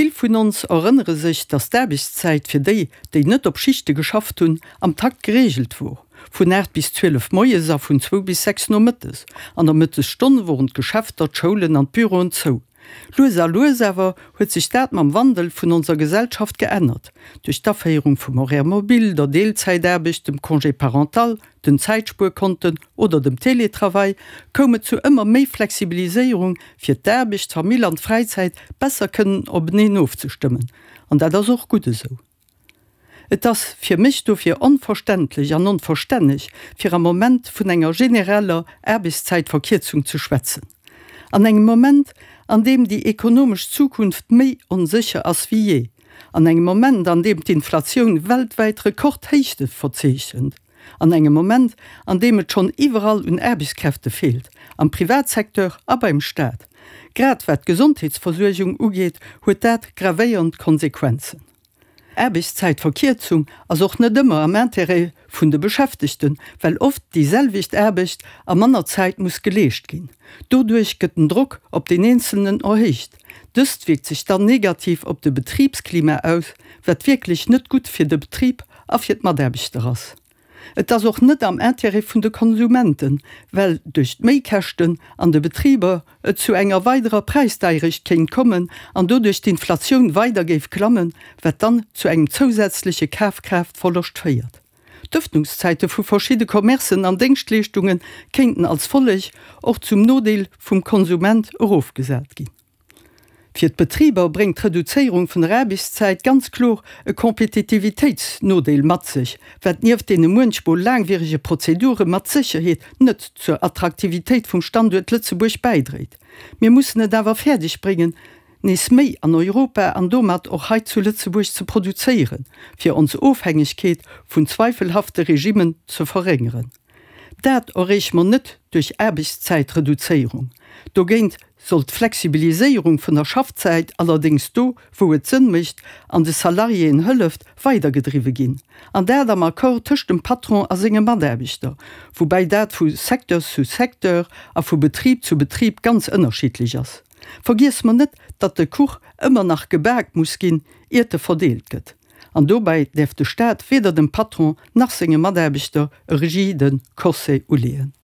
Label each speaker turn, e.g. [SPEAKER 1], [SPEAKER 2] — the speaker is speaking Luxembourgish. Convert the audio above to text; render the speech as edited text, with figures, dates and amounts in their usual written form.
[SPEAKER 1] Vill vun ons erënnere sech, datt d'Aarbechtszäit fir déi, déi net op Schichte geschafft hunn, am Takt gereegelt wor, vun 8 bis 12 moies a vun zwou bis 6 nomëttes. An der Mëttesstonn woren d'Geschäfter, d'Schoulen an d'Büroen zou. Lues a lues awer huet sech dat mam Wandel vun onser Gesellschaft geännert, duerch d'Aféierung vum Horaire mobile, der Deelzäitaarbecht, dem Congé parental, den Zäitspuerkonten oder dem Télétravail koum et zu ëmmer méi Flexibiliséierung, fir d'Aarbecht, d'Famill an d'Fräizäit besser kënnen openeen ofzestëmmen. An dat ass och gutt esou. Et ass fir mech dofir onverständlech an onverstänneg, fir am Moment vun enger genereller Aarbechtszäitverkierzung ze schwätzen. An engem Moment, an deem déi ekonomesch Zukunft méi onsécher ass wéi jee, an engem Moment, an deem d'Inflatioun weltwäit Rekordhéichte verzeechent, an engem Moment, an deem et schonn iwwerall un Aarbechtskräfte feelt, am Privatsecteur a beim Staat. Grad wat d'Gesondheetsversuergung ugeet, huet dat gravéiernd Konsequenzen. Aarbechtszäitverkierzung ass och net ëmmer am Intérêt vun de Beschäftegten, well oft déi selwecht Aarbecht a manner Zäit muss geleescht ginn. Doduerch gëtt den Drock op den Eenzelnen erhéicht. Dëst wierkt sech dann negativ op de Betribsklima aus, wat wierklech net gutt fir de Betrib a fir d'Mataarbechter ass. Et ass och net am Intérêt vun de Konsumenten, well duerch d'Méikäschten an de Betriber et zu enger weiderer Präisdeierecht kéint kommen an doduerch d'Inflatioun weider géif klammen, wat dann zu engem zousätzleche Kafkraaftverloscht féiert. D'Ëffnungszäite vu verschidde Commercen an Déngschtleeschtunge kéinten als Folleg och zum Nodeel vum Konsument erofgesat ginn. Fir d'Betriber bréngt d'Reduzéierung vun der Aarbechtszäit ganz kloer e Kompetitivitéitsnodeel mat sech, wat nieft deene muenchmol laangwierege Prozedure mat Sécherheet net zur Attraktivitéit vum Standuert Lëtzebuerg bäidréit. Mir mussen et awer fäerdeg bréngen, nees méi an Europa an domat och hei zu Lëtzebuerg ze produzéieren, fir ons Ofhängegkeet vun zweifelhafte Regimmen ze verréngeren. Dat erreeche mer net duerch Aarbechtszäitreduzéierung. Dogéint soll d'Flexibiliséierung vun der Schaffzäit allerdéngs do, wou et Sënn mécht an de Salariéen hëlleft, weidergedriwwe ginn. An dat am Accord tëscht dem Patron a senge Mataarbechter, woubäi dat vu Secteur zu Secteur a vu Betrib zu Betrib ganz ënnerschiddlech ass. Vergiesse mer net, datt de Kuch ëmmer nach gebak muss ginn, iert e verdeelt gëtt. An dobäi däerf de Staat weder dem Patron nach senge Mataarbechter e rigide Corset uleeën.